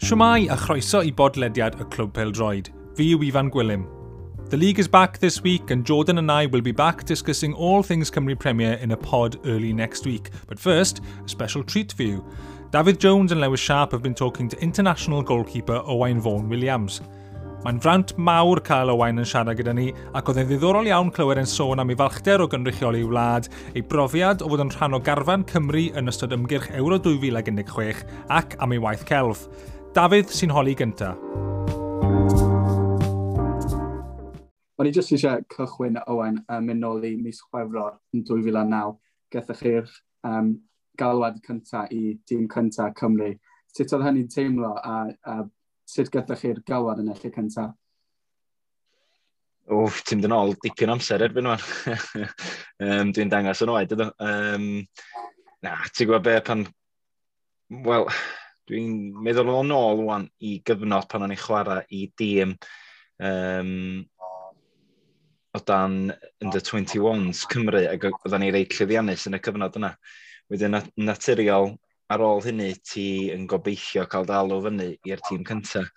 Shwmae a chroeso i bodlediad y Clwb Pêl-droed. Fi yw Ifan Gwilym. The league is back this week and Jordan and I will be back discussing all things Cymru Premier in a pod early next week. But first, a special treat for you. Dafydd Jones and Lewis Sharp have been talking to international goalkeeper Owain Fôn Williams. Mae'n fraint mawr cael Owain yn siarad gyda ni, ac oedd e'n ddiddorol iawn clywed yn sôn am ei falchder o gynrychioli wlad, ei brofiad o fod yn rhan o garfan Cymru yn ystod ymgyrch Euro 2016 ac am ei waith celf. Dafydd sy'n holi gynta. O'n i jyst eisiau cychwyn, Owain, mynd nôl i mis Chwefror yn 2009. Gethoch chi'r galwad cyntaf i dîm cyntaf Cymru. Sut oedd hynny'n teimlo a sut gathoch chi'r galwad yn y lle cyntaf? Wff, ti'n mynd yn ôl dipyn amser erbyn wan. Dwi'n dangos yn oed, ydw. Na, ti'n gwybod be, pan... Wel, dwi'n meddwl o'n ôl wan i gyfnod pan o'n i'n chwarae i dîm o dan under 21s Cymru, ac oedden ni reit llwyddiannus yn y cyfnod yna. Wedyn, naturiol, ar ôl hynny, ti yn gobeithio cael dal o fyny i'r tîm cyntaf.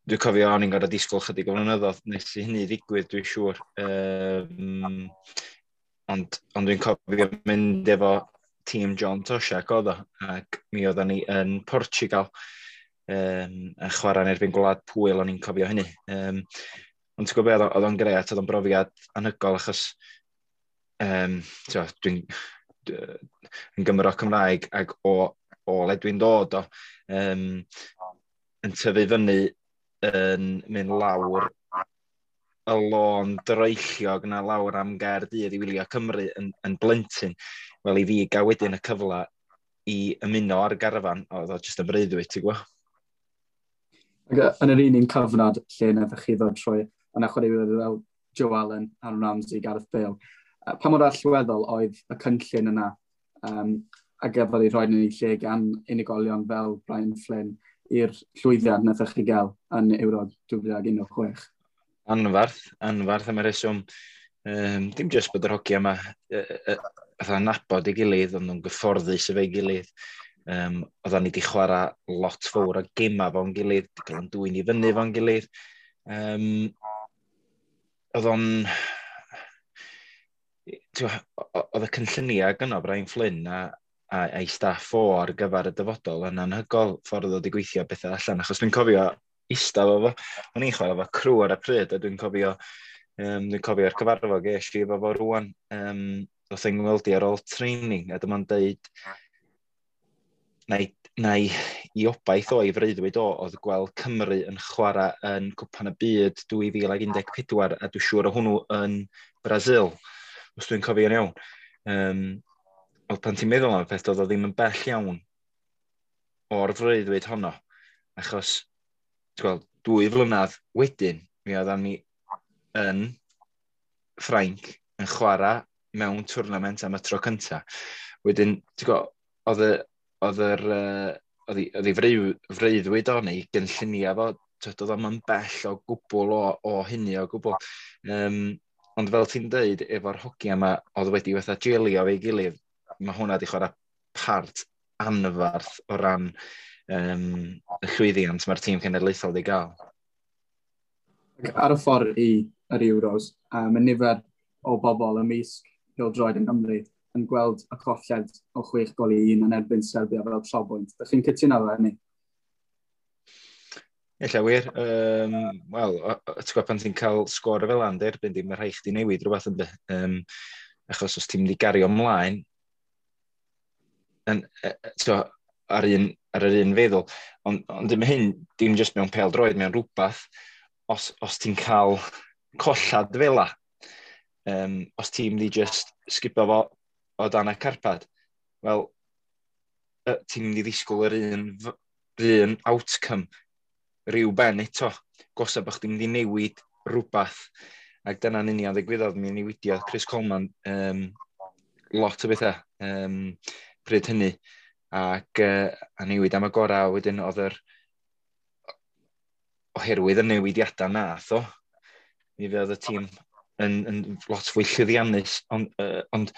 Dwi'n cofio o'n i'n gorfod disgwyl chydig o flynyddoedd nes i hynny ddigwydd, dwi'n siŵr. Ond dwi'n cofio mynd efo tîm John Toshack oedd o, ac mi oedden ni yn Portugal yn chwarae yn erbyn Gwlad Pwyl, o'n i'n cofio hynny. Ond ti'n gwybod beth, oedd o'n gret, oedd o'n brofiad anhygoel, achos dwi'n yn Gymro Cymraeg ac o le dwi'n dod o, yn tyfu fyny yn mynd lawr y lôn droelliog na lawr am Gaerdydd i wylio Cymru yn blentyn. Wel, i fi gael wedyn y cyfle i ymuno ar garfan, oedd o jyst yn breuddwyd, ti'n gwybod? Ac yn yr un cyfnod lle naethoch chi ddod trwy, yna chwaraewyr fel Joe Allen, Aaron Ramsey, Gareth Bale, pa mor allweddol oedd y cynllun yna a gafodd ei rhoi yn ei lle gan unigolion fel Brian Flynn i'r llwyddiant naethoch chi gael yn Euro 2016? Anfarth am y reswm. Dim jyst bod yr hogia yma fatha nabod ei gilydd, ond nhw'n gyfforddus efo'i gilydd. Oedden ni wedi chwarae lot fawr o gema fo'n gilydd, wedi cael yn dwyn i fyny fo'n gilydd. Oedd o'n... Oedd y cynlluniau gynno Brian Flynn a'i staff o ar gyfer y dyfodol yn anhygoel ffordd oedd wedi gweithio bethau allan, achos dwi'n cofio eistedd efo fo. O'n i'n chwarae efo crew ar y pryd, a dwi'n cofio, dwi'n cofio'r cyfarfod ges i efo fo rŵan. Oedd e'n ngweld i ar ôl training, a dyma'n deud na i obaith o, i freuddwyd o, oedd gweld Cymru yn chwarae yn Cwpan y Byd 2014, a dwi'n siŵr o hwnnw yn Brazil, os dwi'n cofio'n iawn. Oedd pan ti'n meddwl am y peth, oedd o ddim yn bell iawn o'r freuddwyd honno, achos ti'n gweld, 2 flynedd wedyn, mi oeddan ni yn Ffrainc yn chwarae mewn twrnament am y tro cynta. Wedyn, ti'n gweld, oedd ei freuddwyd o neu gynlluniau fo, oedd o'm yn bell o gwbl o hynny o gwbl. Ond fel ti'n deud, efo'r hogia yma, oedd wedi fatha jelio efo'i gilydd, mae hwnna wedi chwarae part anfarth o ran y llwyddiant mae'r tîm cenedlaethol wedi gael. Ar y ffordd i yr Euros, mae nifer o bobl ymysg pêl-droed yng Nghymru yn gweld y colled o 6-1 yn erbyn Serbia fel trobwynt. Dych chi'n cytuno efo hynny? Ella wir. Wel, ti'n gwybod pan ti'n cael sgôr fel yna, erbyn di, mae rhaid chdi newid rhywbeth ynddi. Achos os ti'n mynd i gario ymlaen, ar yr un feddwl. Ond dim hyn, dim jyst mewn pêl-droed, mewn rhywbeth, os ti'n cael collad fel 'a, os ti'n mynd i just sgipio fo o dan y carpad, wel, ti'n mynd i ddisgwyl yr un outcome rhyw ben eto. Gosa bod chdi'n mynd i newid rhywbeth. Ac dyna'n union ddigwyddodd, mi newidiodd Chris Coleman lot o bethau pryd hynny. Ac a newid am y gorau, wedyn oedd yr oherwydd y newidiadau nath o, mi fydd y tîm yn lot fwy llwyddiannus, ond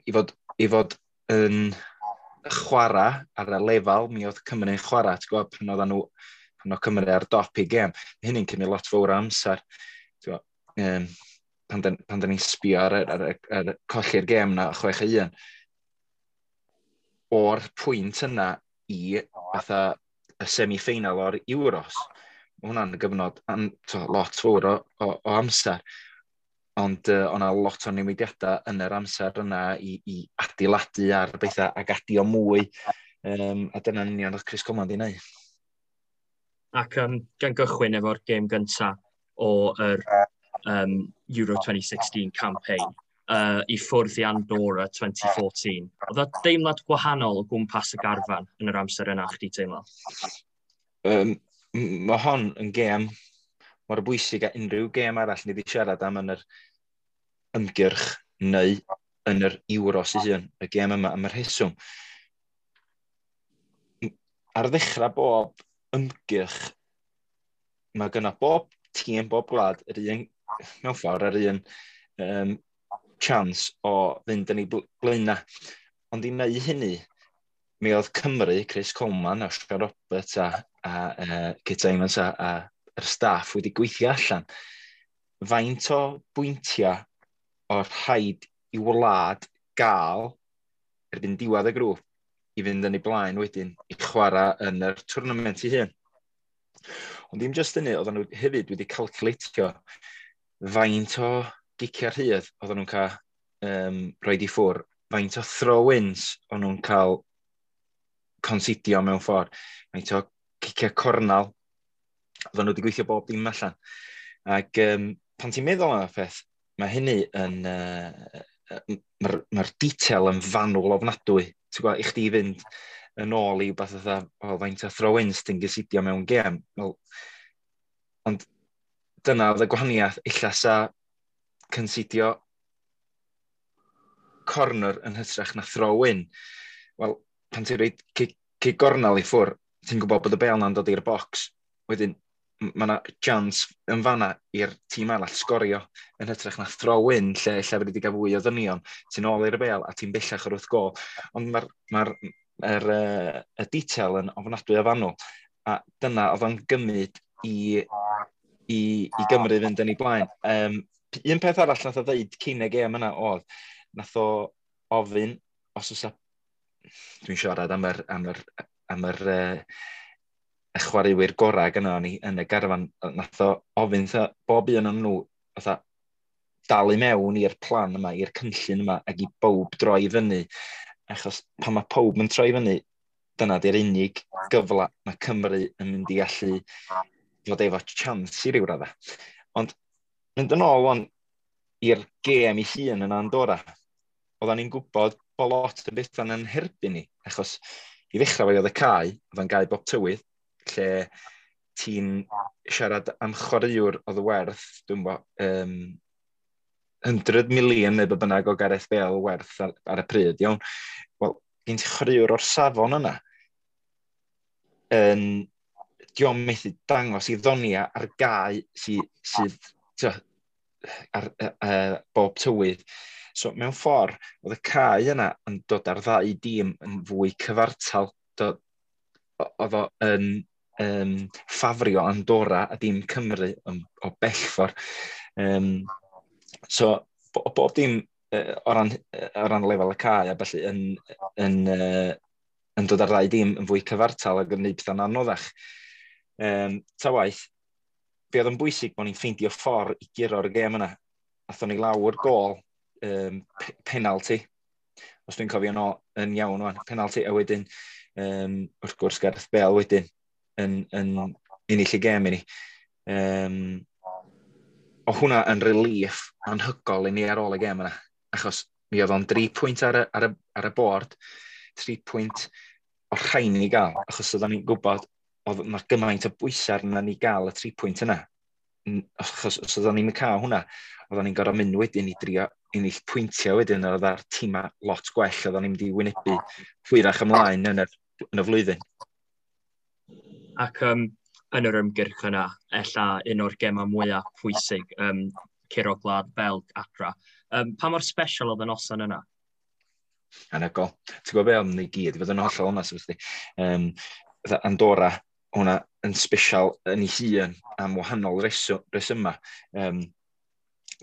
i fod yn Chwarae ar y lefel mi oedd Cymru'n chwarae, ti'n gwybod, pan oedden nhw, pan oedd Cymru ar dop i gêm, mae hynny'n cymryd lot fawr o amser. Ti'n gwybod, pan da ni'n sbio ar colli'r gêm na 6-1, o'r pwynt yna i fatha y semi-final o'r Euros, mae hwnna'n gyfnod to, lot fawr o amser. Ond o'na lot o newidiadau yn yr amser yna i adeiladu ar bethau ac adio mwy. A dyna'n union oedd Chris Coleman di wneud. Ac gan gychwyn efo'r gêm gyntaf o'r Euro 2016 campaign, i ffwrdd i Andorra 2014. Oedd o deimlad gwahanol o gwmpas y garfan yn yr amser yna, chdi teimlo? Mae hon yn gêm mor bwysig a unrhyw gêm arall ni wedi siarad am yn yr ymgyrch neu yn yr Euros ei hun, y gêm yma, am y rheswm. Ar ddechrau bob ymgyrch, mae gyda bob tîm, bob gwlad, yr un, mewn ffordd, yr un chance o fynd yn ei blaenau. Ond i wneud hynny, mi oedd Cymru, Chris Coleman a Sean Roberts a Kit Symons a yr staff wedi gweithio allan faint o bwyntiau o'r rhaid i wlad gael erbyn diwedd y grŵp i fynd yn ei blaen wedyn i chwarae yn yr tournament ei hun. Ond dim jyst hynny, oedden nhw hefyd wedi calculatio faint o giciau rhydd oedden nhw'n cael roed i ffwr, faint o throw-ins o'n nhw'n cael considio mewn ffordd, faint o ciciau cornal, oedden nhw wedi gweithio bob dim allan. Ac pan ti'n meddwl am y peth, mae hynny yn... Mae'r detail yn fanwl ofnadwy. Ti'n gwybod, i chdi fynd yn ôl i beth fatha, o, faint o throw-ins ti'n gysidio mewn gêm. Wel, ond dyna oedd y gwahaniaeth, illa sa considio corner yn hytrach na throw-in. Wel, pan ti'n rhoi cic gornel i ffwr, ti'n gwybod bod y bel na'n dod i'r box. Wedyn, mae yna chance yn fanna i'r tîm arall sgorio yn hytrach na throw-in lle fyddi wedi cael fwy o ddynion. Ti'n ôl i'r bel a ti'n bellach o'r wrth gol. Ond mae'r ma y detail yn ofnadwy o fanwl. A dyna oedd o'n gymryd i Gymru fynd yn ei blaen. Un peth arall nath o ddeud cyn y gêm yna oedd, nath o ofyn, os oes dwi'n siarad am yr y chwaraewyr gorau gyda ni yn y garfan, nath o ofyn tha, bob un o'n nhw fatha, dal i mewn i'r plan yma, i'r cynllun yma, ac i bob droi fyny. Achos pan mae pob yn troi fyny, dyna di'r unig gyfle mae Cymru yn mynd i allu fod efo chance i ryw radda. Ond mynd yn ôl wan i'r gêm ei hun yn Andorra, oedden ni'n gwybod bod lot o bethau'n yn herbyn ni, achos i ddechrau fe oedd y cae, oedd o'n gae bob tywydd, lle ti'n siarad am chwaraewr oedd werth, dwi'n bo, 100 miliwn neu be bynnag o Gareth Bale werth ar y pryd, iawn. Wel, gen ti chwaraewr o'r safon yna, yn dio'm methu dangos i ddonia ar gae sydd tio, ar bob tywydd. So, mewn ffordd, oedd y cae yna yn dod ar ddau dîm yn fwy cyfartal. Oedd o yn ffafrio Andorra a dim Cymru o bell ffordd. So, bob dim o ran lefel y cae a felly yn dod ar ddau dîm yn fwy cyfartal ac yn gwneud pethau'n anoddach. Ta waith, be oedd yn bwysig bod ni'n ffeindio ffordd i guro'r gêm yna. Athon ni lawr gôl penalty, os dwi'n cofio no, yn iawn wan, penalty, a wedyn, wrth gwrs, Gareth Bale wedyn yn ennill y gêm i ni. O hwnna yn relief anhygoel i ni ar ôl y gêm yna, achos mi oedd o'n 3 pwynt ar y bord, 3 pwynt o'r rhain ni gael, achos oedden ni'n gwybod oedd yna gymaint o bwysau arna ni gael y 3 pwynt yna. Achos os oedden ni'n cael hwnna, oedden ni'n gorfod mynd wedyn i drio ennill pwyntiau wedyn, oedd ar tîma lot gwell, oedden ni'n mynd i wynebu hwyrach ymlaen yn y flwyddyn. Ac yn yr ymgyrch yna, ella un o'r gemau mwyaf pwysig, curo Gwlad Belg adra. Pa mor special oedd y noson yna? Anhygoel. Ti'n gwybod be oedd ni gyd, i fod yn hollol onest efo chdi. Andorra, hwnna yn special yn ei hun am wahanol resyma.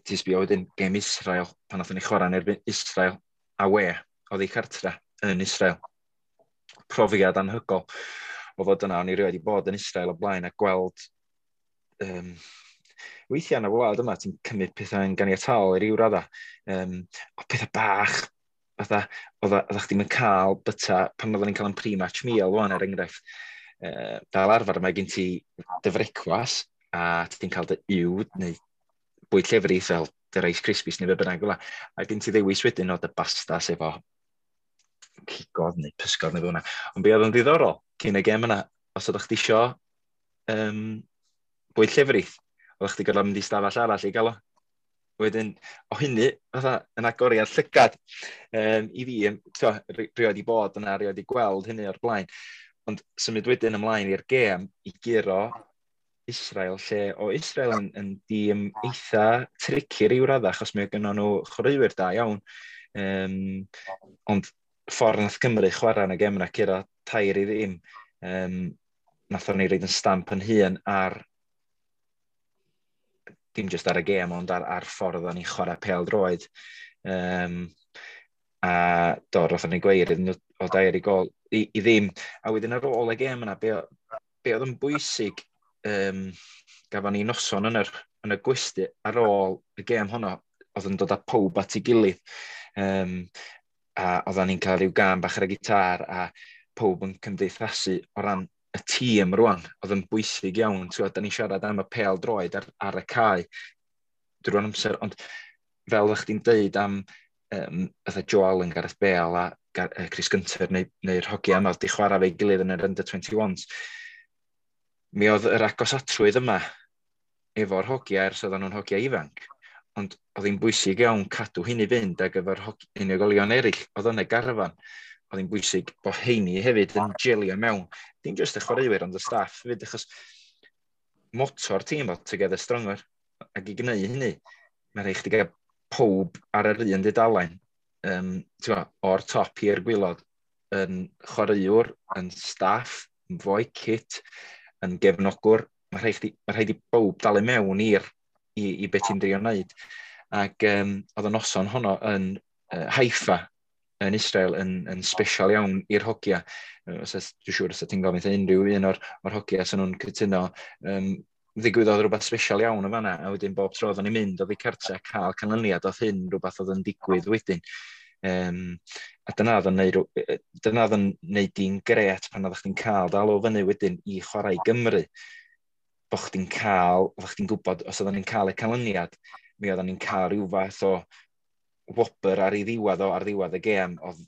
Ti'n sbio wedyn gêm Israel, pan nathon ni chwarae yn erbyn Israel away, oedd ei cartra yn Israel. Profiad anhygoel o fod yna, o'n i rioed i bod yn Israel o blaen a gweld weithiau yn y wlad yma, ti'n cymryd pethau yn ganiataol i ryw radda. O pethau bach, fatha, oeddech chdi'm yn cael byta, pan oedden ni'n cael yn pre-match meal wan, er enghraifft, fel arfer mae gen ti dy frecwas a ti'n cael dy uwd neu bwyd llefrith fel dy Rice Krispies neu be bynnag fel 'a. A gen ti ddewis wedyn o dy bastas efo cigodd neu pysgod neu fel yna. Ond be oedd yn ddiddorol cyn y gêm yna, os oeddech chdi isio bwyd llefrith, oeddech chdi gorfod mynd i stafell arall i gael o. Wedyn, o hynny, fatha, yn agoriad llygad i fi, rioed i bod yna, rioed i gweld hynny o'r blaen. Ond symud wedyn ymlaen i'r gêm i guro Israel, lle o Israel yn dîm eitha tricky ryw radda, achos mae gynnon nhw chwaraewyr da iawn. Ond ffordd nath Cymru chwarae yn y gêm yna, curo 3-0, nathon ni roid yn stamp yn hun ar, dim jyst ar y gêm, ond ar ffordd o'n ni'n chwarae pêl droed. A do, rothon ni gweir iddyn nhw o 3 gôl i ddim. A wedyn ar ôl y gêm yna, be oedd yn bwysig, gafon ni noson yn y gwesty ar ôl y gêm honno, oedd yn dod â pawb at ei gilydd. A oedden ni'n cael rhyw gân bach ar y gitar a pawb yn cymdeithasu o ran y tîm rwan, oedd yn bwysig iawn. Ti'n gwbod, da ni'n siarad am y pêl droed ar y cae drwy'r amser, ond fel ydych chdi'n deud am fatha Joe Allen, Gareth Bale a Chris Gunter neu'r hogia yma oedd di chwarae fe'i gilydd yn yr under 21s, mi oedd yr agosatrwydd yma efo'r hogia ers oedden nhw'n hogia ifanc, ond oedd hi'n bwysig iawn cadw hynny fynd ag efo'r unigolion eraill oedd yn y garfan. Oedd hi'n bwysig bod heini hefyd yn gelio mewn, dim jyst y chwaraewyr ond y staff hefyd, achos moto'r tîm oedd Together Stronger, ac i gwneud hynny, mae'n rhaid chdi gael pob ar yr un dudalen, ti'n gwbod, o'r top i'r gwaelod, yn chwaraewr, yn staff, yn foi kit, yn gefnogwr, mae rhaid i bob dalu mewn i beth ti'n drio wneud. Ac oedd y noson honno yn Haifa, yn Israel, yn special iawn i'r hogia. Dwi'n siŵr os ti'n gofyn unrhyw un o'r hogia sy'n nhw'n cytuno, ddigwyddodd rhywbeth special iawn o fanna, a wedyn bob tro oedden ni'n mynd oddi cartre cael canlyniad, oedd hyn rhywbeth oedd yn digwydd wedyn. A dyna oedd yn neud di'n gret pan oeddech chdi'n cael dal o fyny wedyn i chwarae i Gymru. Bo chdi'n cael, oeddech chdi'n gwybod, os oedden ni'n cael y canlyniad, mi oedden ni'n cael rhyw fath o wobr ar ei ddiwedd o, ar ddiwedd y gêm, oedd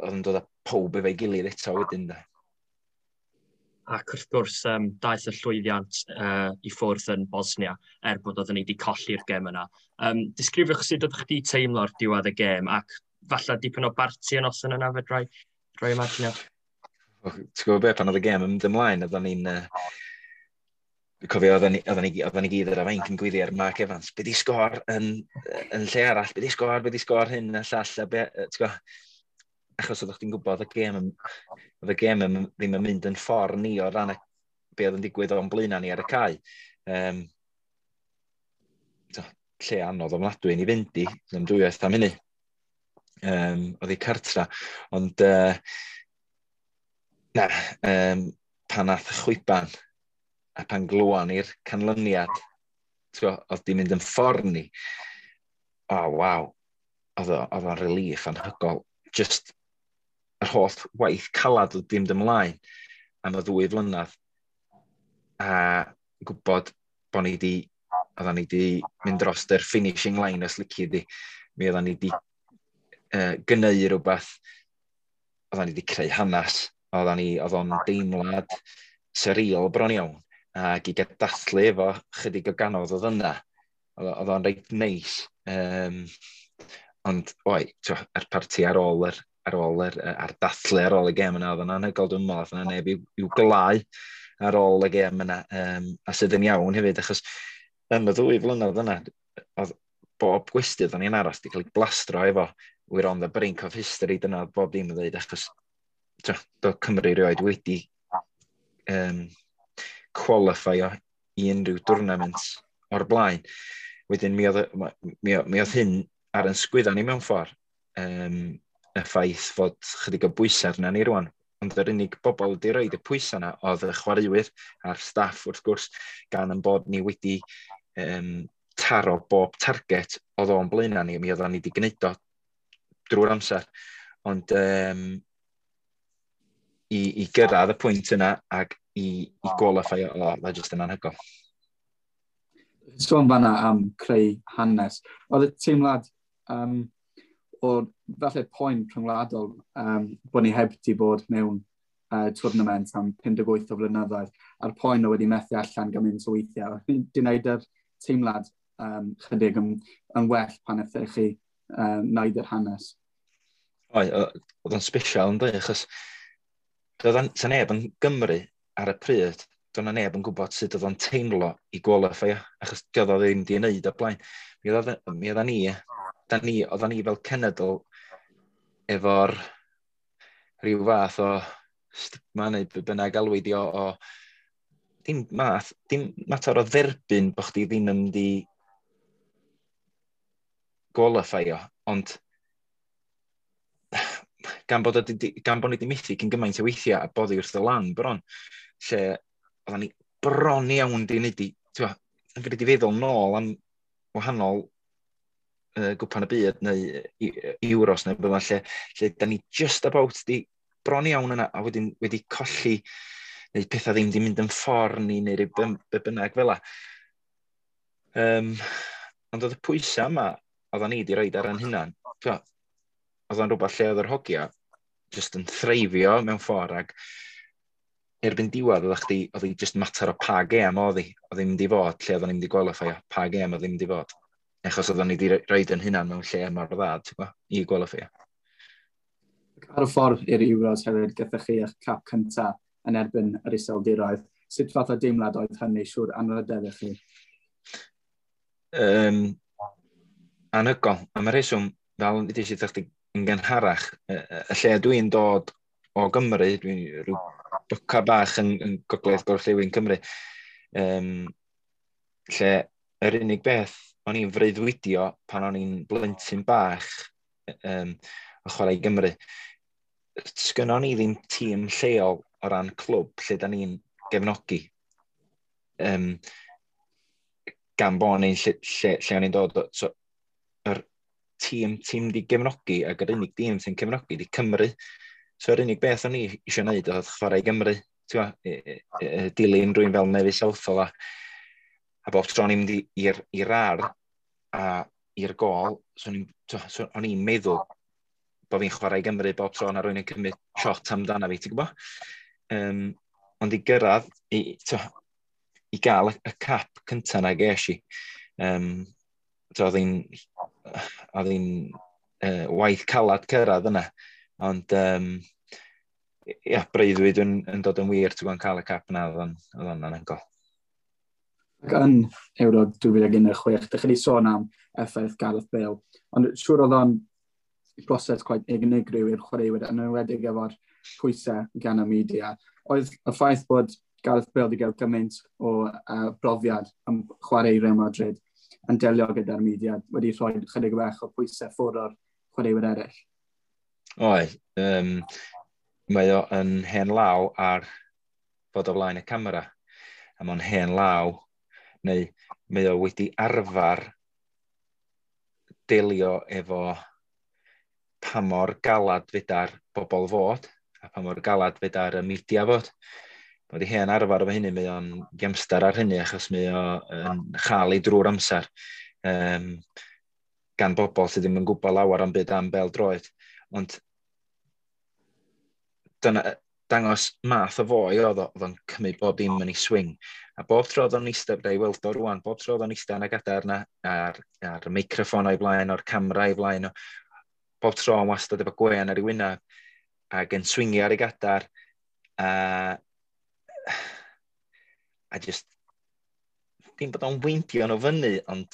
yn dod â pob efo'i gilydd eto wedyn. De. Ac wrth gwrs, daeth y llwyddiant i ffwrdd yn Bosnia, er bod oedden ni wedi colli'r gêm yna. Disgrifiwch sut oeddech chdi teimlo ar diwedd y gêm, ac falle dipyn o barti yn noson yna, fedrai rhoi imaginio? Ti'n gwybod beth, pan oedd y gêm yn mynd ymlaen, oedden ni'n... Dwi'n cofio oedden ni gyd ar y fainc yn gweiddi ar Mark Evans, be di sgôr yn lle arall, be di sgôr, be di sgôr hyn a llall, a be, ti'n gwybod, achos oeddech chdi'n gwybod oedd y gêm ddim yn mynd yn ffordd ni o ran be oedd yn digwydd o'n blaenau ni ar y cae. Lle anodd ofnadwy ni fynd i, ddim dwywaith am hynny. Oedd hi cartra, ond na, pan nath y chwiban a pan glwan i'r canlyniad, ti'n gwbod, oedd di mynd yn ffordd ni, oh, waw, oedd o'n relief anhygoel. Just yr holl waith calad oedd di mynd ymlaen am y 2 flynedd, a gwybod bod ni di, oeddan ni di mynd dros yr finishing line os lici di, mi oeddan ni di gynneu rhywbeth, oeddan ni di creu hanes, oedd o'n deimlad surreal bron iawn, ac i gael dathlu efo chydig o ganodd oedd yna, oedd o'n reit neis. Ond, oi, t'wo, yr parti ar ôl yr, ar ôl yr, ar dathlu ar ôl y gêm yna, oedd o'n anhygoel, dwi'n meddwl, oedd yna neb i'w glau ar ôl y gêm yna, a sydd yn iawn hefyd, achos yn y 2 flynedd yna, oedd bob gwesty oedden ni'n aros wedi cael ei blastro efo We're on the brink of history, dyna bob dim yn dweud, achos do Cymru rioed wedi qualify i unrhyw tournament o'r blaen. Wedyn mi oedd hyn ar yn sgwydda ni mewn ffordd. Y ffaith fod chydig o bwysau arna ni rwan. Ond yr unig bobl wedi rhoid y pwysau yna oedd y chwaraewyr a'r staff wrth gwrs, gan yn bod ni wedi taro bob target oedd o'n blaenau ni, mi oedden ni wedi gwneud o drwy'r amser. Ond i gyrraedd y pwynt yna ac i qualify, o, oh, just yn anhygoel. Sôn fanna am creu hanes. Oedd y teimlad o falle poen rhyngwladol bod ni heb di bod mewn tournament am 58 o flynyddoedd, a'r poen o wedi methu allan gymaint o weithiau. Di wneud yr teimlad chydig yn well pan ydych chi wneud yr hanes? Oedd, oedd o'n special yn dweud, achos doedd sa neb yn Gymru ar y pryd, doedd na neb yn gwybod sut oedd o'n teimlo i qualify, achos doedd o ddim di wneud o blaen. Mi oedd ni, da ni, oedden ni fel cenedl efo'r rhyw fath o stigma neu be bynnag alwi di o dim math, dim mater o dderbyn bod chdi ddim yn mynd i qualify-o, ond gan bod ni wedi methu cyn gymaint o weithiau a boddi wrth y lan bron, lle oedden ni bron iawn di wneud i, ti'n yn wedi feddwl nôl am wahanol Gwpan y Byd neu Euros neu bydda lle da ni just about di bron iawn yna a wedyn wedi colli neu pethau ddim di mynd yn ffordd ni neu rhyw be bynnag fel la. Ond oedd y pwysau yma oedden ni wedi rhoid ar ein hunan, oedd o'n rhywbeth lle oedd yr hogia just yn threifio mewn ffordd ac erbyn diwedd oedd chdi, oedd hi just mater o pa gêm oedd hi, oedd hi'n mynd i fod lle oedd ni'n mynd i qualify, pa gêm oedd hi'n mynd i fod. Achos oedden ni wedi rhoid yn hunan mewn lle mor dda, ti'n gwybod, i qualify. Ar y ffordd i'r Euros hefyd, gyda chi eich cap cyntaf yn erbyn yr Iseldiroedd. Sut fath o deimlad oedd hynny, siŵr anrhydedd i chi? Anhygoel. Am y rheswm, fel ddweud i chdi yn gynharach, y lle dwi'n dod o Gymru, dwi'n rhyw boca bach yn gogledd gorllewin Cymru, lle yr unig beth o'n i'n freuddwydio pan o'n i'n blentyn bach o chwarae i Gymru, sgynnon ni ddim tîm lleol o ran clwb lle da ni'n gefnogi. Gan bod ni'n lle o'n i'n dod. So, yr tîm ti'n di gefnogi ac yr unig dîm sy'n cefnogi di Cymru. So yr unig beth o'n i eisiau gwneud oedd chwarae i Gymru. Ti'n dilyn rhywun fel Neville Southall a bob tro o'n i'n mynd i'r ar a i'r gol, so o'n i'n meddwl bod fi'n chwarae i Gymru bob tro na rhywun yn cymryd shot amdana fi, ti'n gwybod? Ond i gyrraedd, i gael y cap cyntaf na ges i, oedd hi'n waith calad cyrraedd yna. Ond ia, breuddwyd yn dod yn wir, ti'n gwybod, cael y cap yna, oedd o'n anhygoel. Ac yn Euro 2016, dych chi wedi sôn am effaith Gareth Bale, ond siŵr oedd o'n broses quite unigryw i'r chwaraewyr, yn enwedig efo'r pwysau gan y media. Oedd y ffaith bod Gareth Bale wedi cael gymaint o brofiad am chwarae i Real Madrid yn delio gyda'r media wedi rhoi chydig bach o pwysau ffwrdd o'r chwaraewyr eraill? Oedd. Mae o yn hen law ar fod o flaen y camera. A mae'n hen law, neu mae o wedi arfer delio efo pa mor galad fedar bobl fod, a pa mor galad fedar y media fod. Mae wedi hen arfer efo hynny, mae o'n gemstar ar hynny, achos mae o'n chael ei drwy'r amser gan bobl sydd ddim yn gwybod lawer am byd am bel droed. Ond dyna, dangos math o foi oedd o, oedd o'n cymryd bob dim yn ei swing. A bob tro oedd o'n eistedd, i weld o rwan, bob tro oedd o'n eistedd yn y gadair yna, ar y meicroffon o'i blaen, o'r camera o'i blaen, o, bob tro yn wastad efo gwen ar ei wyneb, ac yn swingio ar ei gadar, a just, dim bod o'n weindio nhw fyny, ond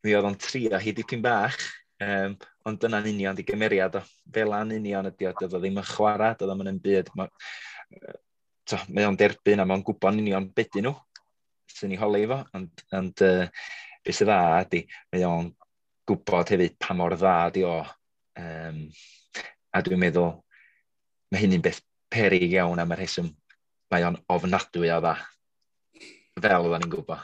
mi oedd o'n trio hi dipyn bach. Ond dyna'n union di gymeriad o. Fel a'n union ydi o, doedd o ddim yn chwarae, doedd o'm yn byd. Mae o'n derbyn a mae'n gwybod yn union beth nhw sy'n ei holi fo, ond beth sydd dda ydi, mae o'n gwybod hefyd pa mor dda di o. A dwi'n meddwl, mae hynny'n beth peryg iawn am y rheswm, mae o'n ofnadwy o dda, fel oedden ni'n gwybod.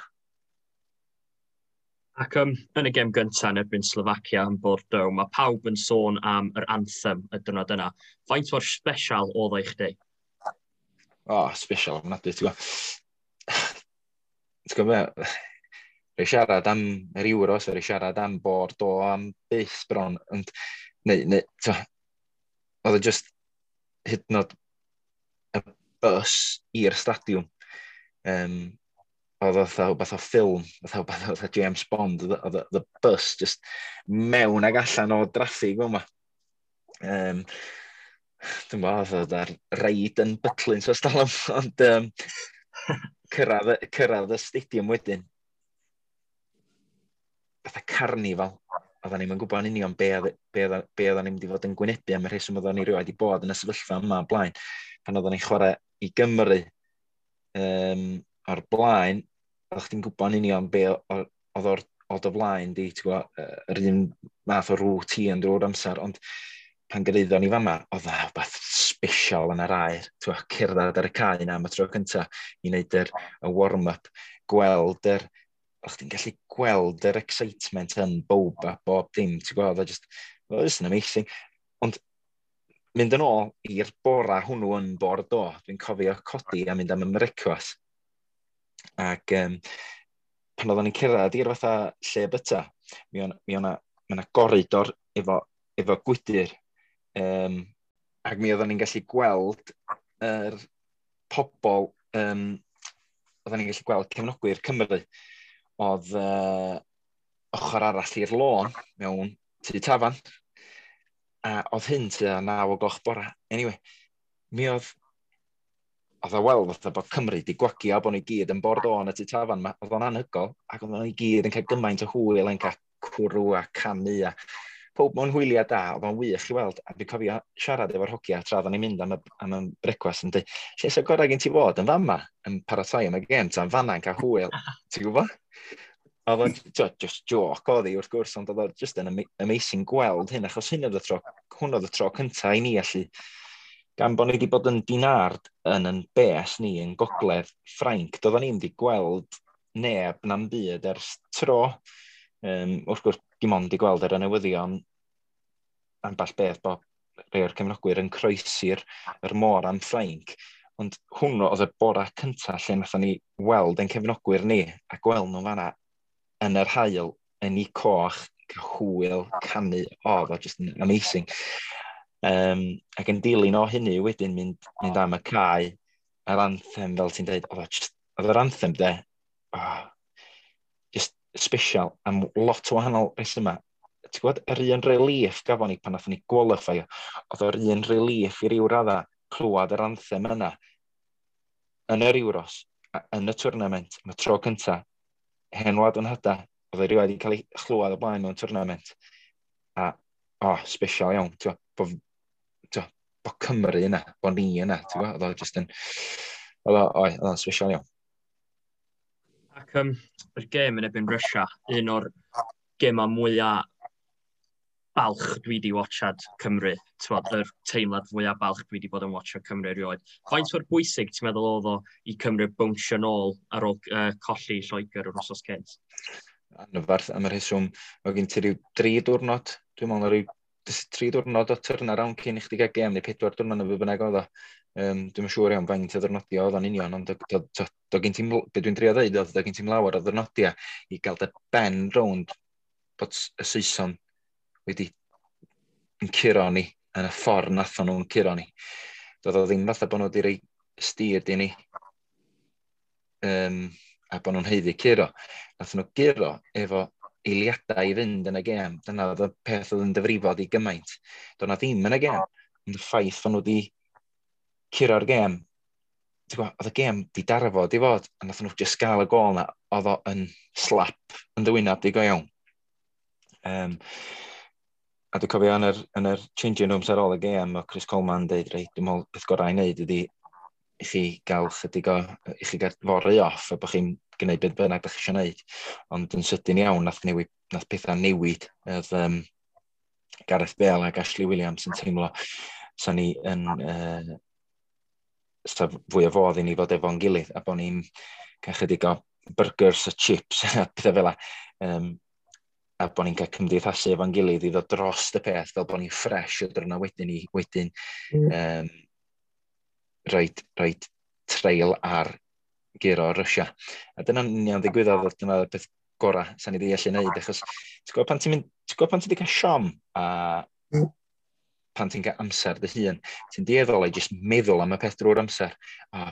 Ac yn y gêm gyntaf yn erbyn Slovacia yn Bordeaux, mae pawb yn sôn am yr anthem y diwrnod yna. Faint mor special oedd o i chdi? O, oh, special ofnadwy, ti'n gwybod. Ti'n gwybod, rhaid siarad am yr Euros, rhaid siarad am Bordeaux, am byth bron, ond, neu, ti'n oedd e just hyd yn oed y bus i'r stadiwm. Oedd fatha rhywbeth o ffilm, fatha rhywbeth o James Bond, oedd y bus just mewn ag allan o draffig fel yma. Dwi'n gwybod, oedd ar reid yn Butlins o stalwm, ond cyrraedd y stadiwm wedyn, fatha carnifal, oedden ni'n gwybod yn union be oedden ni'n mynd i fod yn gwynebu am y rheswm oedden ni rioed wedi bod yn y sefyllfa yma o blaen, pan oedden ni'n chwarae i Gymru o'r blaen, oeddech chdi'n gwybod yn union be oedd o'r o flaen di, ti'n gwybod, yr un math o routine drwy'r amser, ond pan gyrhaeddon ni fama, oedd na rhywbeth special yn yr aer, ti'n gwybod, cerdded ar y cae yna am y tro cyntaf i wneud y warm-up, gweld yr, o'ch chdi'n gallu gweld yr excitement yn bob a bob dim, ti'n gwybod, oedd o just yn amazing. Ond mynd yn ôl i'r bora hwnnw yn Bordeaux, dwi'n cofio codi a mynd am y brecwast. Ac pan oedden ni'n cyrraedd i'r fatha lle byta, mi o'na goridor efo gwydyr. Ac mi oedden ni'n gallu gweld yr pobol, oedden ni'n gallu gweld cefnogwyr Cymru, oedd ochr arall i'r lôn mewn tŷ tafarn, a oedd hyn tua 9 o'gloch bora. Anyway, mi oedd o weld fatha bod Cymru di gwagio bod ni gyd yn Bordeaux yn y tŷ tafarn, oedd o'n anhygoel, ac oedd o'n i gyd yn cael gymaint o hwyl, yn cael cwrw a canu a pob mewn hwyliau da, oedd o'n wych i weld, a dwi'n cofio siarad efo'r hogia tra oedden ni'n mynd am y brecwast yn dweud, lle sy'n gorau gen ti fod yn fama yn paratoi am y gêm, ta'n fanna'n cael hwyl, ti'n gwybod? Oedd o'n just joke oedd hi wrth gwrs, ond oedd o'n just yn amazing gweld hyn, achos hyn oedd y tro, hwn oedd y tro cyntaf i ni allu, gan bod ni wedi bod yn Dinard yn bes ni yn gogledd Ffrainc, doedden ni'n wedi gweld neb na'n byd ers tro. Wrth gwrs, dim ond i gweld ar y newyddion ambell beth bod rhai o'r cefnogwyr yn croesi'r yr môr am Ffrainc. Ond hwnnw oedd y bora cyntaf lle nathon ni weld ein cefnogwyr ni a gweld nhw fanna yn yr haul, yn ei coch, cael hwyl, canu, oedd o just yn amazing. Ac yn dilyn o hynny wedyn mynd am y cae, yr anthem, fel ti'n dweud, oedd yr anthem de, oh, just special am lot o wahanol resymau. Ti'n gwybod, yr un relief gafon ni pan nathon ni qualify, oedd yr un relief i ryw radda clywed yr anthem yna yn yr Euros, yn y tournament, am y tro cynta, hen wlad yn hyda, oedd e rioed wedi cael ei chlywed o blaen mewn tournament. A, oh, special iawn, ti'n gwybod, bo Cymru yna, bo ni yna, ti'n gwybod, oedd o just yn, oedd o'n special iawn. Ac yr gêm yn erbyn Russia, un o'r gemau mwyaf balch dwi wedi watchad Cymru. T'wod, yr teimlad fwyaf balch dwi wedi bod yn watchad Cymru erioed. Faint o'r bwysig ti'n meddwl oedd o i Cymru bownsio nôl ar ôl colli Lloegr yr wythnos cynt? Anferth am y rheswm, oedd gen ti ryw 3 diwrnod, dwi'n meddwl ryw 3 diwrnod o turnaround cyn i chdi gael gêm, neu 4 diwrnod neu be bynnag oedd o. Dwi'n siŵr iawn faint o ddwrnodia oedd o'n union, ond do gen ti'n, be dwi'n drio dweud oedd, do gen ti'n lawer o ddwrnodia i gael dy ben rownd bod y Saeson wedi yn curo ni yn y ffordd nathon nhw'n curo ni. Doedd o ddim fatha bod nhw wedi rhoi steer i ni a bod nhw'n haeddu curo. Nathon nhw guro efo eiliadau i fynd yn y gêm. Dyna oedd y peth oedd yn difrifo di gymaint. Doedd na ddim yn y gêm. Ond y ffaith fod nhw wedi curo'r gêm, ti'n gwbod, oedd y gêm di darfod i fod, a nathon nhw just gael y gôl na, oedd o yn slap yn dy wynab di go iawn. A dwi'n cofio yn yr changing rooms ar ôl y gêm, o Chris Coleman dweud, "Reit, dwi'n meddwl beth gorau i wneud ydy i chi gael chydig o, i chi gael fory off a bod chi'n gwneud beth bynnag ydych chi eisiau gwneud." Ond yn sydyn iawn, nath pethau newid. Oedd Gareth Bale ac Ashley Williams yn teimlo sa ni yn sa fwy o fodd i ni fod efo'n gilydd a bod ni'n cael chydig o burgers a chips a pethau fel 'na. A bod ni'n cael cymdeithasu efo'n gilydd i ddod dros y peth fel bod ni'n ffres o dyrna wedyn i wedyn rhoid trail ar guro Russia. A dyna'n union ddigwyddodd, oedd dyna'r peth gorau sa'n ni wedi allu gwneud, achos ti'n gwybod pan ti wedi cael siom a pan ti'n cael amser dy hun, ti'n dueddol i jyst meddwl am y peth drwy'r amser. A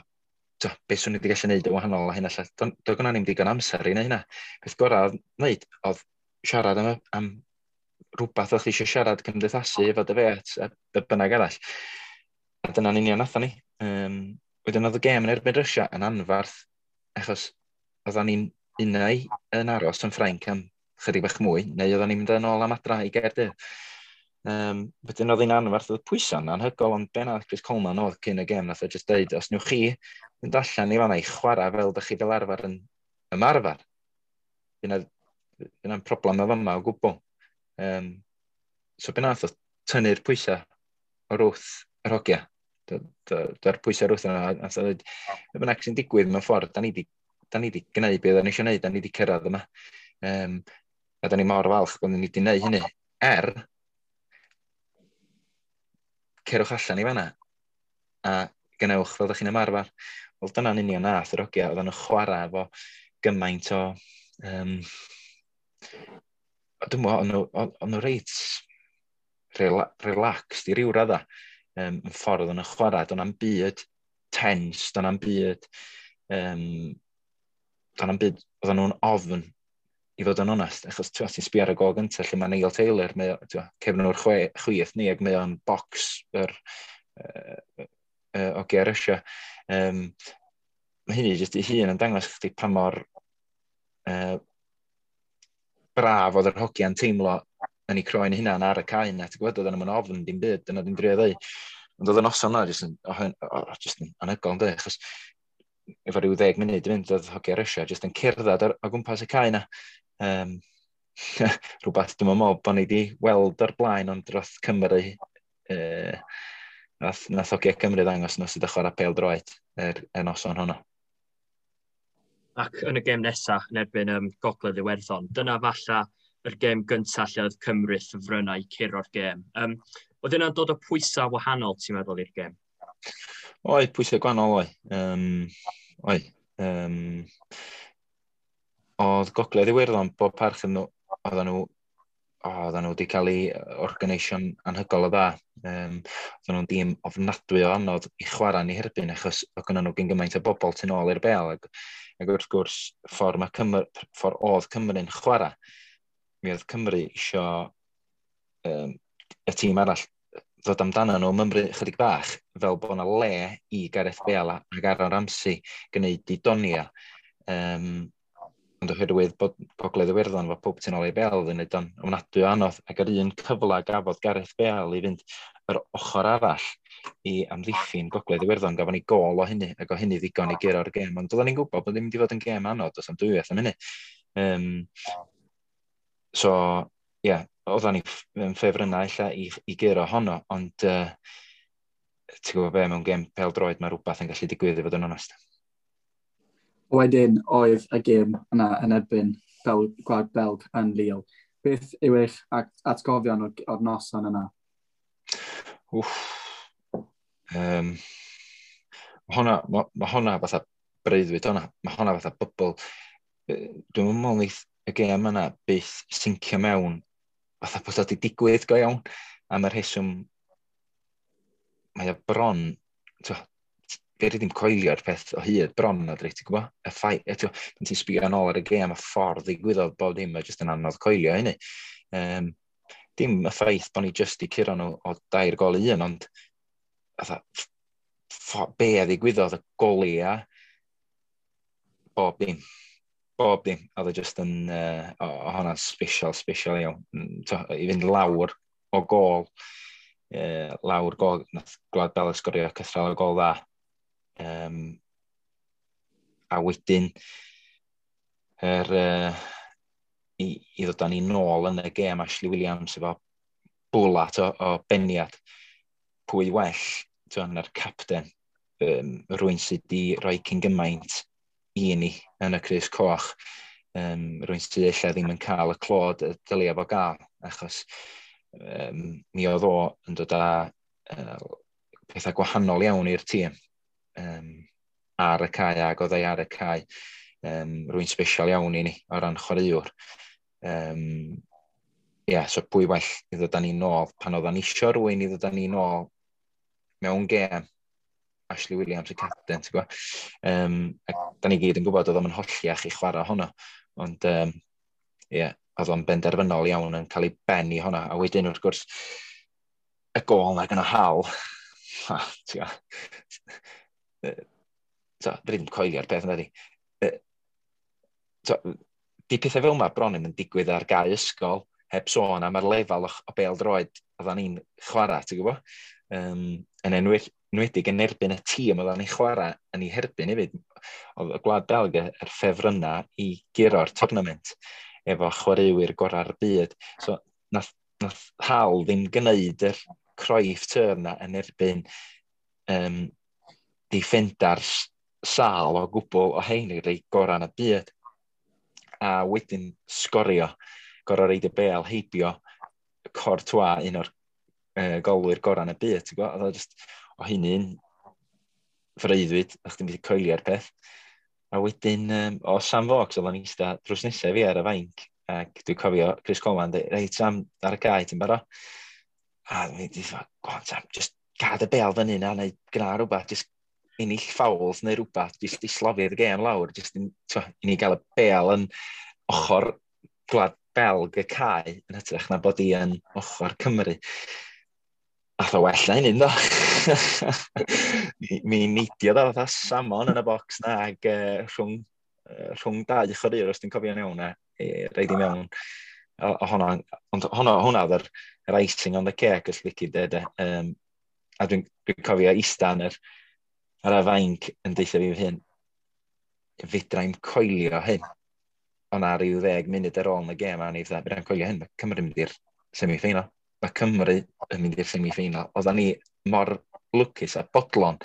to, beth swn i wedi gallu gwneud yn wahanol a hyn allan. Do gynna ni'm digon amser i wneud hynna. Peth gorau wneud oedd siarad am rhywbeth o'ch chi eisiau siarad, cymdeithasu efo dy fêt a be bynnag arall. A dyna'n union nathon ni. Wedyn oedd y gêm yn erbyn Russia yn anfarth, achos oedden ni'n unau yn aros yn Ffrainc am chydig bach mwy, neu oedden ni'n mynd yn ôl am adra i Gaerdydd. Wedyn oedd hi'n anfarth, oedd pwysau'n anhygoel, ond be nath Chris Coleman oedd cyn y gêm, nath o just deud, "Os newch chi fynd allan i fanna i chwarae fel ydych chi fel arfer yn ymarfer, dyna'n problem o fama o gwbl." So be nath o tynnu'r pwysau o'r wrth yr hogia. Dy'r pwysau o'r wrth yna, nath o ddweud, "Be bynnag sy'n digwydd mewn ffordd, da ni di gwneud beth da ni eisiau gwneud, da ni di cyrraedd yma. A da ni mor falch bod ni wedi gwneud hynny. Er, cerwch allan i fanna a gwnewch fel ydych chi'n ymarfer." Wel, dyna'n union nath yr hogia, oedden nhw'n chwarae efo gymaint o... dwi'n meddwl, o'n nhw reit relaxed i ryw radda yn ffordd o'n nhw'n chwarae. Do'n na'm byd tense, do'n na'm byd, oedden nhw'n ofn i fod yn onest, achos ti'n sbio ar y gol gyntaf lle mae Neil Taylor, mae, cefnwr chwith ni, ac mae o'n box yr o Russia. Mae hynny jyst i hun yn dangos chdi pa mor braf oedd yr hogia'n teimlo yn eu croen hunan ar y cae yna. Ti'n gwybod, oedden nhw'n ofn dim byd, dyna dwi'n drio ddeud. Ond oedd y noson yna jyst yn, oh, just yn anhygoel, ynddi? Achos efo rhyw 10 munud i fynd, oedd hogia Russia jyst yn cerdded o gwmpas y cae yna. Rhywbeth dwi'n meddwl bod ni wedi weld o'r blaen, ond dros Cymru, nath hogia Cymru ddangos nhw sydd yn chwarae pêl droed y noson honno. Ac yn y gêm nesaf yn erbyn Gogledd Iwerddon, dyna falla yr gêm gyntaf lle oedd Cymru ffefrynnau curo'r gêm. Oedd yna'n dod o pwysau wahanol, ti'n meddwl, i'r gêm? Oedd, pwysau gwahanol oedd. Oedd. Oedd Gogledd Iwerddon, bob parch yn nhw, oedden nhw wedi cael ei organisio'n anhygoel o dda. Oedden nhw'n dîm ofnadwy o anodd i chwarae ni herbyn, achos oedd gynnon nhw gyn gymaint o bobl tu nôl i'r bel. Ac wrth gwrs, ffordd oedd Cymru'n chwarae, mi oedd Cymru isio y tîm arall ddod amdano nhw mymryn chydig bach, fel bod yna le i Gareth Bale ac Aaron Ramsey gwneud i donia. Ond oherwydd bod Gogledd Iwerddon fo pob tu nôl i bel yn neud o'n ofnadwy o anodd, ac yr un cyfle gafodd Gareth Bale i fynd yr ochr arall i amddiffyn Gogledd Iwerddon, gafon ni gol o hynny, ac o hynny ddigon i guro'r gêm. Ond oedden ni'n gwybod bod ddim wedi fod yn gêm anodd, does am dwywaith am hynny. So, ie, yeah, oedden ni yn ffefrynnau ella i guro honno, ond ti'n gwybod be, mewn gêm pêl droed mae rhywbeth yn gallu digwydd i fod yn onest. Wedyn oedd y gêm yna yn erbyn Gwlad Belg yn Lille. Beth yw eich atgofion o'r noson yna? Wff. Ma hwnna fatha breuddwyd hwnna. Mae hwnna fatha bubble. Dwi'n meddwl neith y gêm yna byth sincio mewn fatha bod o wedi digwydd go iawn. Am y rheswm mae o bron, fe ddim coelio'r peth o hyd bron na dweud, ti'n gwybod? Y ffai, ti'n pan ti'n sbio yn ôl ar y gêm, y ffordd ddigwyddodd bob dim, mae jyst yn anodd coelio hynny. Dim y ffaith bod ni jyst i curo nhw o 3 gôl i 1, ond fatha, be a ddigwyddodd, y golia, bob dim. Bob dim. Oedd o jyst yn, o hwnna'n special, special iawn. I fynd lawr o gol lawr gol, nath Gwlad Belg sgorio cythral o gol dda. A wedyn i ddod â ni nôl yn y gêm, Ashley Williams efo bwlat o beniad. Pwy well, na'r capten, rwy'n sydd wedi rhoi cyn gymaint i ni yn y crys coch, rwy'n sydd ella ddim yn cael y clod y dylia fo gael, achos mi oedd o yn dod â pethau gwahanol iawn i'r tîm ar y cae, ac oedd ei ar y cae. Rwy'n special iawn i ni o ran chwaraewr. Yeah, so pwy well i ddod â ni nôl pan oeddan ni isio rhywun i ddod â ni nôl mewn gêm, Ashley Williams y capten, ti'n gwybod? A da ni gyd yn gwybod oedd o'n holliach i chwarae honno, ond yeah, oedd o'n benderfynol iawn yn cael ei ben i honna. A wedyn wrth gwrs, y gôl na gyda Hal, ti'n gwybod, so, ddim coelio'r peth yna di. So, di pethau fel yma bron yn digwydd ar gau ysgol, heb sôn am yr lefel o bêl-droed oeddan ni'n chwarae, ti'n gwybod? Yn enwedig yn erbyn y tîm oeddan ni'n chwarae yn ei herbyn hefyd. Oedd y Gwlad Belg yr ffefrynnau i guro'r tournament efo chwaraewyr gorau'r byd. So, nath Hal ddim gwneud yr Cruyff turn na yn erbyn defenders sâl o gwbl o hein i'r rei gorau yn y byd. A wedyn sgorio, gorau reid y bêl heibio Courtois, un o'r golwyr gorau yn y byd, ti'n gwybod? Oedd o just, o hynny'n freuddwyd, o'ch ti'n methu coelio'r peth. A wedyn, o Sam Vokes, oedd o'n eista drws nesaf fi ar y fainc, ac dwi'n cofio Chris Coleman, dweud, reit Sam, ar y cae, ti'n barod? A dwi'n dweud, go on Sam, just gad y bêl fyny na, neu gwna rhywbeth, just ennill fouls neu rhywbeth, just i slofi'r gêm lawr, just i ni gael y bêl yn ochr Gwlad Belg y cae, yn hytrach na bod i yn ochr Cymru. Ath o well na hynny, do. Mi neidiodd o fatha salmon yn y bocs na, ac rhwng dau chwaraewr, os dwi'n cofio'n iawn, a reid i mewn. Honna, ond hwnna oedd yr icing on the cake, os lici de. A dwi'n cofio ista yn ar y fainc yn deutha fi fy hun, fedrai'm coelio hyn. Ond ar ryw 10 munud ar ôl yn y gêm, a ni fatha, fedrai'm coelio hyn, mae Cymru yn mynd i'r semi-final. Mae Cymru yn mynd i'r semi-final. Oeddan ni mor lwcus a bodlon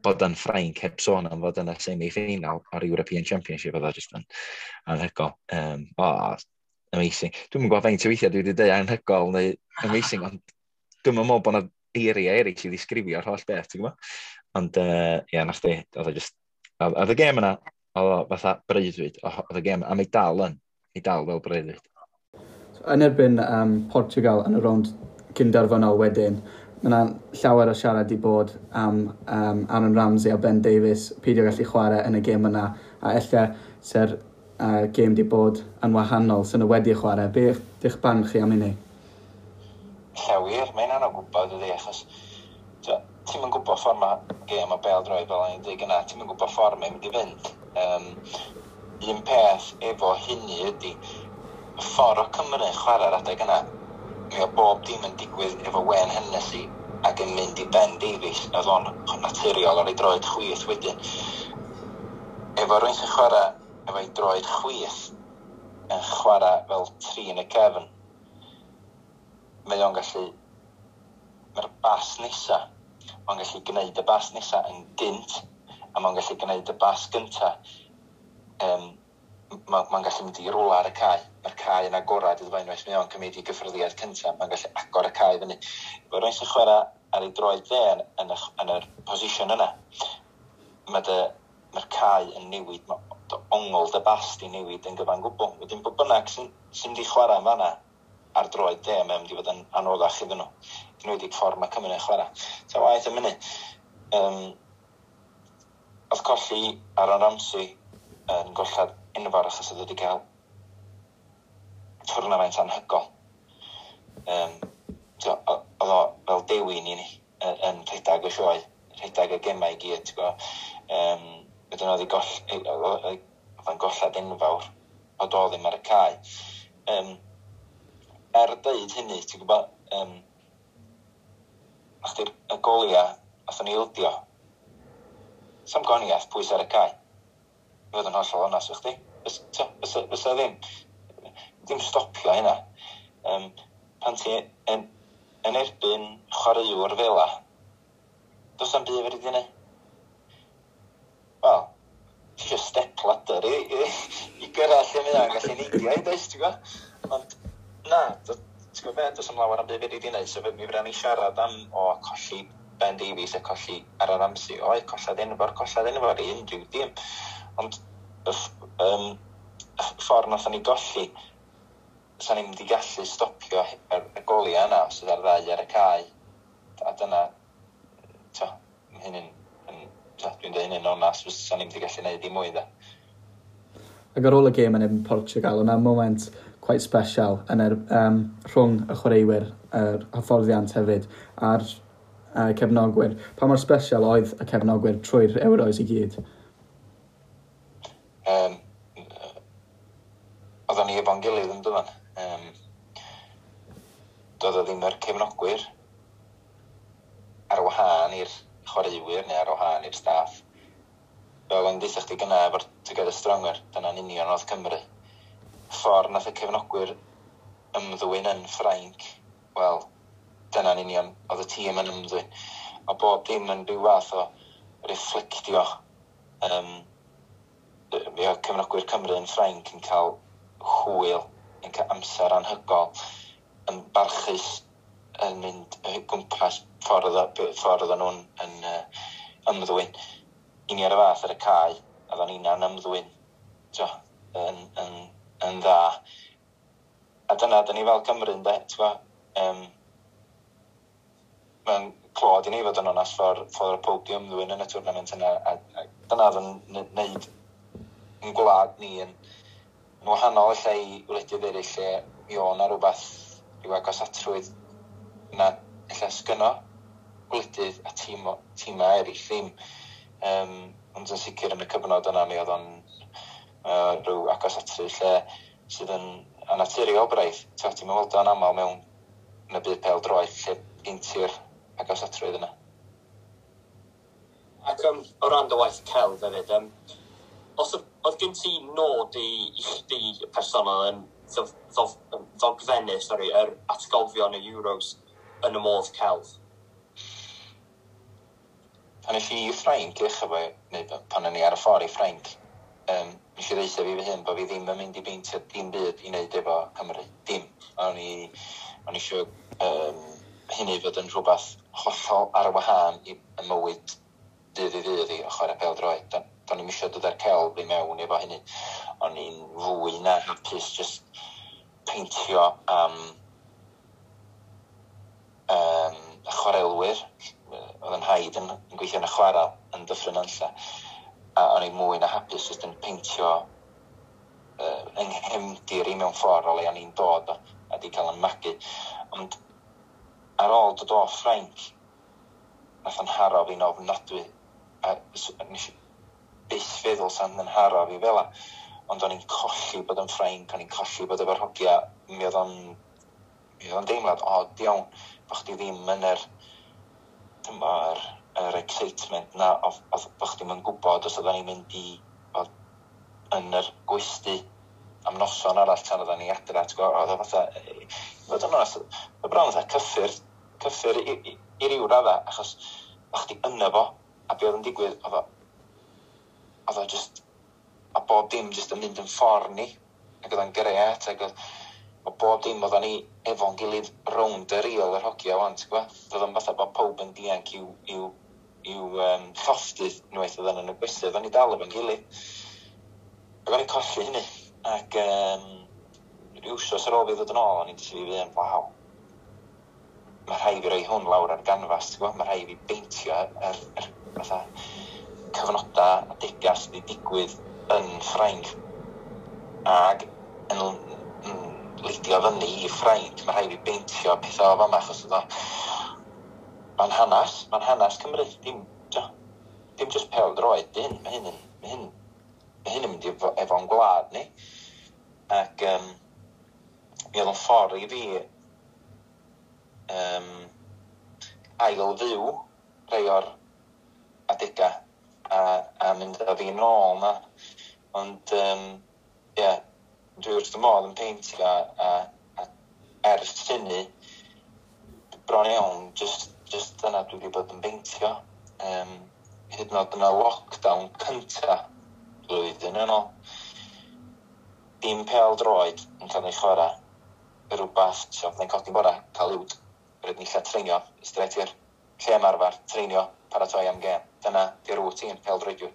bod yn Ffrainc heb sôn am fod yn y semi-final o'r European Championship, oedd o just yn anhygoel. Amazing. Dwi'm yn gwybod faint o weithiau dwi wedi dweud anhygoel neu amazing, ond dwi'm yn meddwl bod yna eiriau eraill i ddisgrifio'r holl beth, ti'n gwybod? Ond, ie, yeah, nath di, oedd o just, oedd y gêm yna, oedd o fatha breuddwyd, oedd y gêm, a mae dal yn, mae dal fel breuddwyd. So, yn erbyn Portugal yn y rownd cynderfynol wedyn, mae yna llawer o siarad i bod am Aaron Ramsey a Ben Davies peidio gallu chwarae yn y gêm yna, a ella se'r gêm di bod yn wahanol sy'n nhw wedi chwarae. Be ydych barn chi am hynny? Llawer, mae'n anodd gwybod ydy, achos ti'm yn gwybod ffordd mae gêm o bêl-droed fel o'n i'n dweud gynna, ti'm yn gwybod ffordd mae'n mynd i fynd. Un peth efo hynny ydy, y ffordd o Cymru yn chwarae'r adeg yna, mi o bob dim yn digwydd efo Wayne Hennessy ac yn mynd i Ben Davies, oedd o'n naturiol ar ei droed chwith wedyn. Efo rhywun sy'n chwarae efo'i droed chwith yn chwarae fel tri yn y cefn, mae o'n gallu, mae'r bas nesa, mae'n gallu gwneud y bas nesa yn gynt, a mae'n gallu gwneud y bas gynta. Mae'n gallu mynd i rwla ar y cae. Mae'r cae yn agorad iddo fo unwaith mae o'n cymryd i gyffyrddiad cynta, mae'n gallu agor y cae fyny. Efo rhywun sy'n chwarae ar ei droed dde yn yr position yna, mae'r cae yn newid, mae dy ongl dy bas di newid yn gyfan gwbl. Wedyn bod bynnag sy'n mynd i chwarae yn fanna ar droed dde, mae'n mynd i fod yn anoddach iddyn nhw. Enwedig ffordd mae Cymru yn chwarae. Ta waeth am hynny. Oedd colli Aaron Ramsey yn gollad enfawr achos oedd wedi cael twrnament anhygol. So, oedd o fel dewin i ni yn rhedeg y sioe, rhedeg y gemau i gyd, ti'n gwybod. Wedyn oedd o'n gollad enfawr o do ddim ar y cae. Er deud hynny, ti'n gwybod, Achdi'r y golia, athon ni ildio. Sam goniaeth pwys ar y cae. I fod yn hollol onast efo chdi. Fysa ddim. Ddim stopio hynna. Pan ti yn erbyn chwaraewr fela, does na'm byd fedri di neud. Wel, ti eisiau step ladder i gyrraedd lle mae o'n gallu neidio i, does, ti'n gwybod? Ond na, ti'n gwybod be, does am lawer am byd fedri di neud, so mi fydda ni siarad am o colli Ben Davies a colli Aaron Ramsey. Oedd, collad enfawr i unrhyw dîm. Ond y ffordd nathon ni golli, sa'n ni'n mynd i gallu stopio y goliau yna os oedd ar ddau ar y cae. A dyna, hyn yn, dwi'n dweud hynny'n onast, sa'n ni'n mynd i gallu gwneud dim mwy, da. Ac ar ôl y gêm yn erbyn Portugal, o'na moment quite special yn rhwng y chwaraewyr, yr hyfforddiant hefyd, a'r cefnogwyr. Pa mor special oedd y cefnogwyr trwy'r Euros i gyd? Oedden ni efo'n gilydd yn dyfan. Doedd o ddim yr cefnogwyr ar wahân i'r chwaraewyr neu ar wahân i'r staff. Fel o'n deitha chdi gynna efo'r Together Stronger, dyna'n union oedd Cymru. Ffordd nath y cefnogwyr ymddwyn yn Ffrainc, wel, dyna'n union oedd y tîm yn ymddwyn. A bob dim yn rhyw fath o reflectio. Mi oedd cefnogwyr Cymru yn Ffrainc yn cael hwyl, yn cael amser anhygol, yn barchus, yn mynd gwmpas ffordd oedden nhw'n yn ymddwyn. I ni ar y fath ar y cae, oedden ni'n ymddwyn yn dda. A dyna, dyn ni fel Cymru, ynde, ti'n gwbod? Mae'n clod i ni fod yn onast ffordd y pob di ymddwyn yn y tournament yna. A dyna oedd yn neud yn gwlad ni yn wahanol lle i wledydd eraill lle mi o'n na rhywbeth rhyw agosatrwydd na ella sgynno gwledydd a tîmau eraill ddim. Ond yn sicr yn y cyfnod yna mi oedd o'n rhyw agosatrwydd lle sydd yn annaturiol braidd. Ti'n weld o'n aml mewn yn y byd pêl-droed lle gen ti'r agosatrwydd yna. Ac o ran dy waith celf hefyd, os oedd gen ti nod i chdi personol yn ddogfennu, yr atgofion y Euros yn y modd celf? Pan es i i Ffrainc, neu pan o'n i ar y ffordd i Ffrainc, nes i ddeutha fi fy hun bod fi ddim yn mynd i beintio dim byd i wneud efo Cymru. Dim. O'n i eisiau hynny fod yn rhywbeth hollol ar wahân i mywyd dydd i ddydd i o chwarae pêl-droed. Do'n i'm eisiau dod â'r celf i mewn efo hynny. O'n i'n fwy na hapus just peintio am y chwarelwyr. Oedd yn haid yn gweithio yn y chwarel yn Dyffryn Nantlle. A o'n i'n mwy na hapus just yn peintio yng nghefndir i mewn ffordd o le o'n i'n dod o, a di cael yn magu. Ond ar ôl dod o Ffrainc, nath o'n haro fi'n ofnadwy. A nes i byth feddwl sa'n yn haro fi fel 'a. Ond o'n i'n colli bod yn Ffrainc, o'n i'n colli bod efo'r hogia. Mi oedd o'n deimlad od iawn bo' chdi ddim yn yr excitement na, oedd bo' chdi'm yn gwybod os oedden ni'n mynd i fod yn yr gwesty am noson arall tan oedden ni adra, ti'n gwybod, oedd o fatha, i fod yn onest, oedd bron fatha cyffur i ryw radda, achos o chdi yno fo, a be oedd yn digwydd, oedd o just, a bob dim just yn mynd yn ffordd ni, ac oedd o'n grêt, ac oedd bob dim oedden ni efo'n gilydd rownd y rîl yr hogia wan, ti'n gwybod? Oedd o'n fatha bod pawb yn dianc i'w llofftydd unwaith oedden nhw'n y gwesty, oedden ni dal efo'n gilydd. Ac o'n i'n colli hynny, ac ryw wsos ar ôl fi ddod yn ôl, o'n i'n dweud i fi hun, waw, mae rhaid fi roi hwn lawr ar ganfas, ti'n gwybod? Mae rhaid fi beintio yr fatha cyfnodau a degau sydd wedi digwydd yn Ffrainc ac yn leidio fyny i Ffrainc. Mae rhaid fi beintio pethau o fama, achos oedd o mae'n hanes Cymru, dim just pêl-droed, dim, mae hyn yn mynd efo'n gwlad ni. Ac mi oedd o'n ffordd i fi Ail fyw rhai o'r adega a mynd â fi nôl na. Ond, ie, dwi wrth y modd yn peintio a ers hynny, bron iawn, just dyna dwi wedi bod yn peintio. Hyd yn oed yn y lockdown cynta blwyddyn yn ôl, dim pêl droed yn cael ei chwarae, rhywbeth, so byddai'n codi bora, cael uwd, rydyn ni lle treinio, straight i'r lle ymarfer, treinio, paratoi am gêm. Dyna di'r routine pêl droediwr.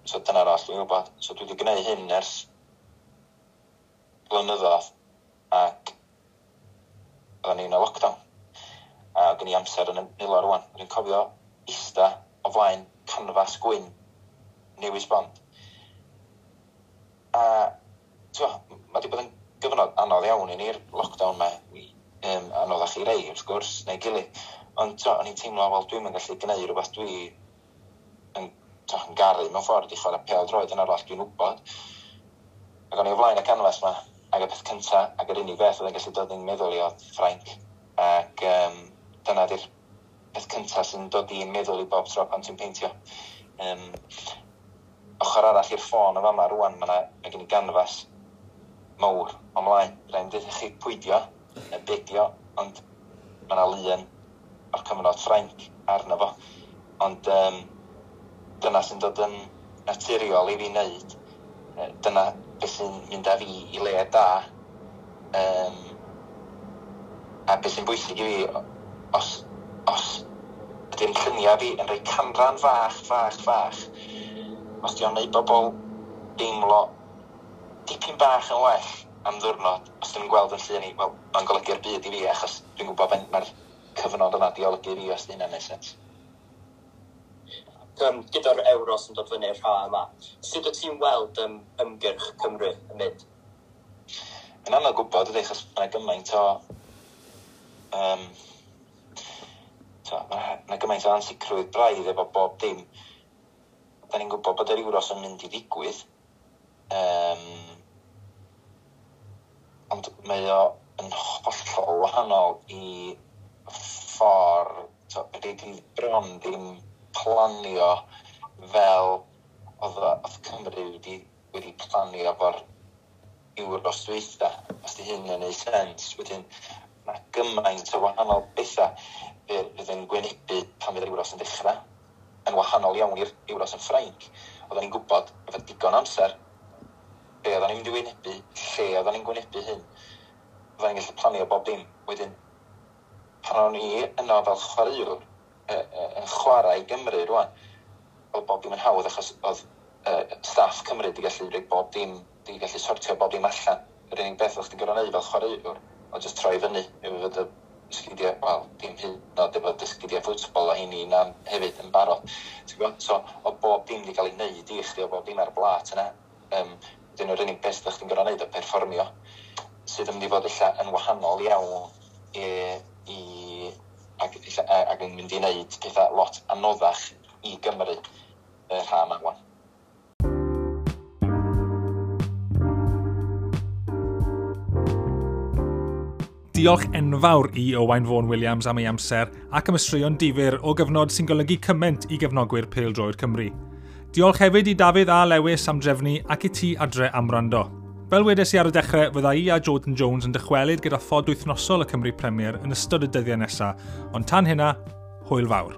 So dyna'r oll dwi'n gwybod. So dwi wedi gwneud hyn ers blynyddoedd ac oedden ni'n y lockdown. A gen i amser yn y nilo rwan. Dwi'n cofio ista o flaen canfas gwyn newydd sbon. A mae wedi bod yn gyfnod anodd iawn i ni'r lockdown 'ma. Anoddach i rei wrth gwrs, neu gilydd. Ond o'n i'n teimlo, wel, dwi'm yn gallu gwneud rhywbeth dwi yn garu mewn ffordd i chwarae pêl droed yn arall dwi'n wybod. Ac o'n i o flaen y canfas 'ma, ac y peth cynta, ac yr unig beth oedd yn gallu dod i'n meddwl i oedd Ffrainc. Ac dyna di'r peth cynta sy'n dod i'n meddwl i bob tro pan ti'n peintio. Ochr arall i'r ffôn o fama rwan, mae gen i ganfas mawr o mlaen. Rhaid i chi pwydio, neu bedio, ond mae yna lun o'r cyfnod Ffrainc arno fo. Ond dyna sy'n dod yn naturiol i fi wneud. Dyna beth sy'n mynd â fi i le da. A beth sy'n bwysig i fi, os ydy'n lluniau fi yn rhoi canran fach, fach, fach, os di o'n neud bobl deimlo dipyn bach yn well am ddwrnod, os dyn nhw'n gweld yn llun i, wel, mae'n golygu'r byd i fi, achos dwi'n gwybod faint mae'r cyfnod yma di olygu i fi, os di hynna'n neud sens. Gyda'r Euros yn dod fyny'r ha yma, sut wyt ti'n weld ymgyrch Cymru yn mynd? Mae'n anodd gwybod, ydy, achos mae gymaint o mae gymaint o ansicrwydd braidd efo bob dim. Da ni'n gwybod bod yr Euros yn mynd i ddigwydd. Ond mae o yn hollol wahanol i ffordd, ydy bron ddim planio fel oedd Cymru wedi planio efo'r Euros dwytha, os di hyn yn neud sens. Wedyn mae gymaint o wahanol bethau fydd yn gwynebu pan fydd yr Euros yn dechrau, yn wahanol iawn i'r Euros yn Ffrainc. Oedden ni'n gwybod efo digon amser be oedden ni'n mynd i wynebu, lle oedden ni'n gwynebu hyn. Oedden ni'n gallu planio bob dim. Wedyn, pan o'n i yno fel chwaraewr, yn chwarae i Gymru rwan, oedd bob dim yn hawdd achos oedd staff Cymru wedi gallu rhoi bob dim, wedi gallu sortio bob dim allan. Yr unig beth o'ch ti'n gorfod neud fel chwaraewr, oedd jyst troi fyny efo fod y sgidiau, wel, dim hyd yn oed efo dy sgidiau ffwtbol a heini na hefyd yn barod. Ti'n gwybod? So, oedd bob dim wedi cael ei wneud i chdi, oedd bob dim ar y blat yna. Wedyn yr unig beth o'ch ti'n gorfod neud oedd perfformio, sydd yn mynd i fod ella yn wahanol iawn ac yn mynd i wneud pethau lot anoddach i Gymru y rhan yma wan. Diolch enfawr i Owain Fôn Williams am ei amser ac am y straeon difyr o gyfnod sy'n golygu cymaint i gefnogwyr pêl-droed Cymru. Diolch hefyd i Dafydd a Lewis am drefnu ac i ti adre am wrando. Fel wedes i ar y dechrau, fydda i a Jordan Jones yn dychwelyd gyda phod wythnosol y Cymru Premier yn ystod y dyddiau nesaf, ond tan hynna, hwyl fawr.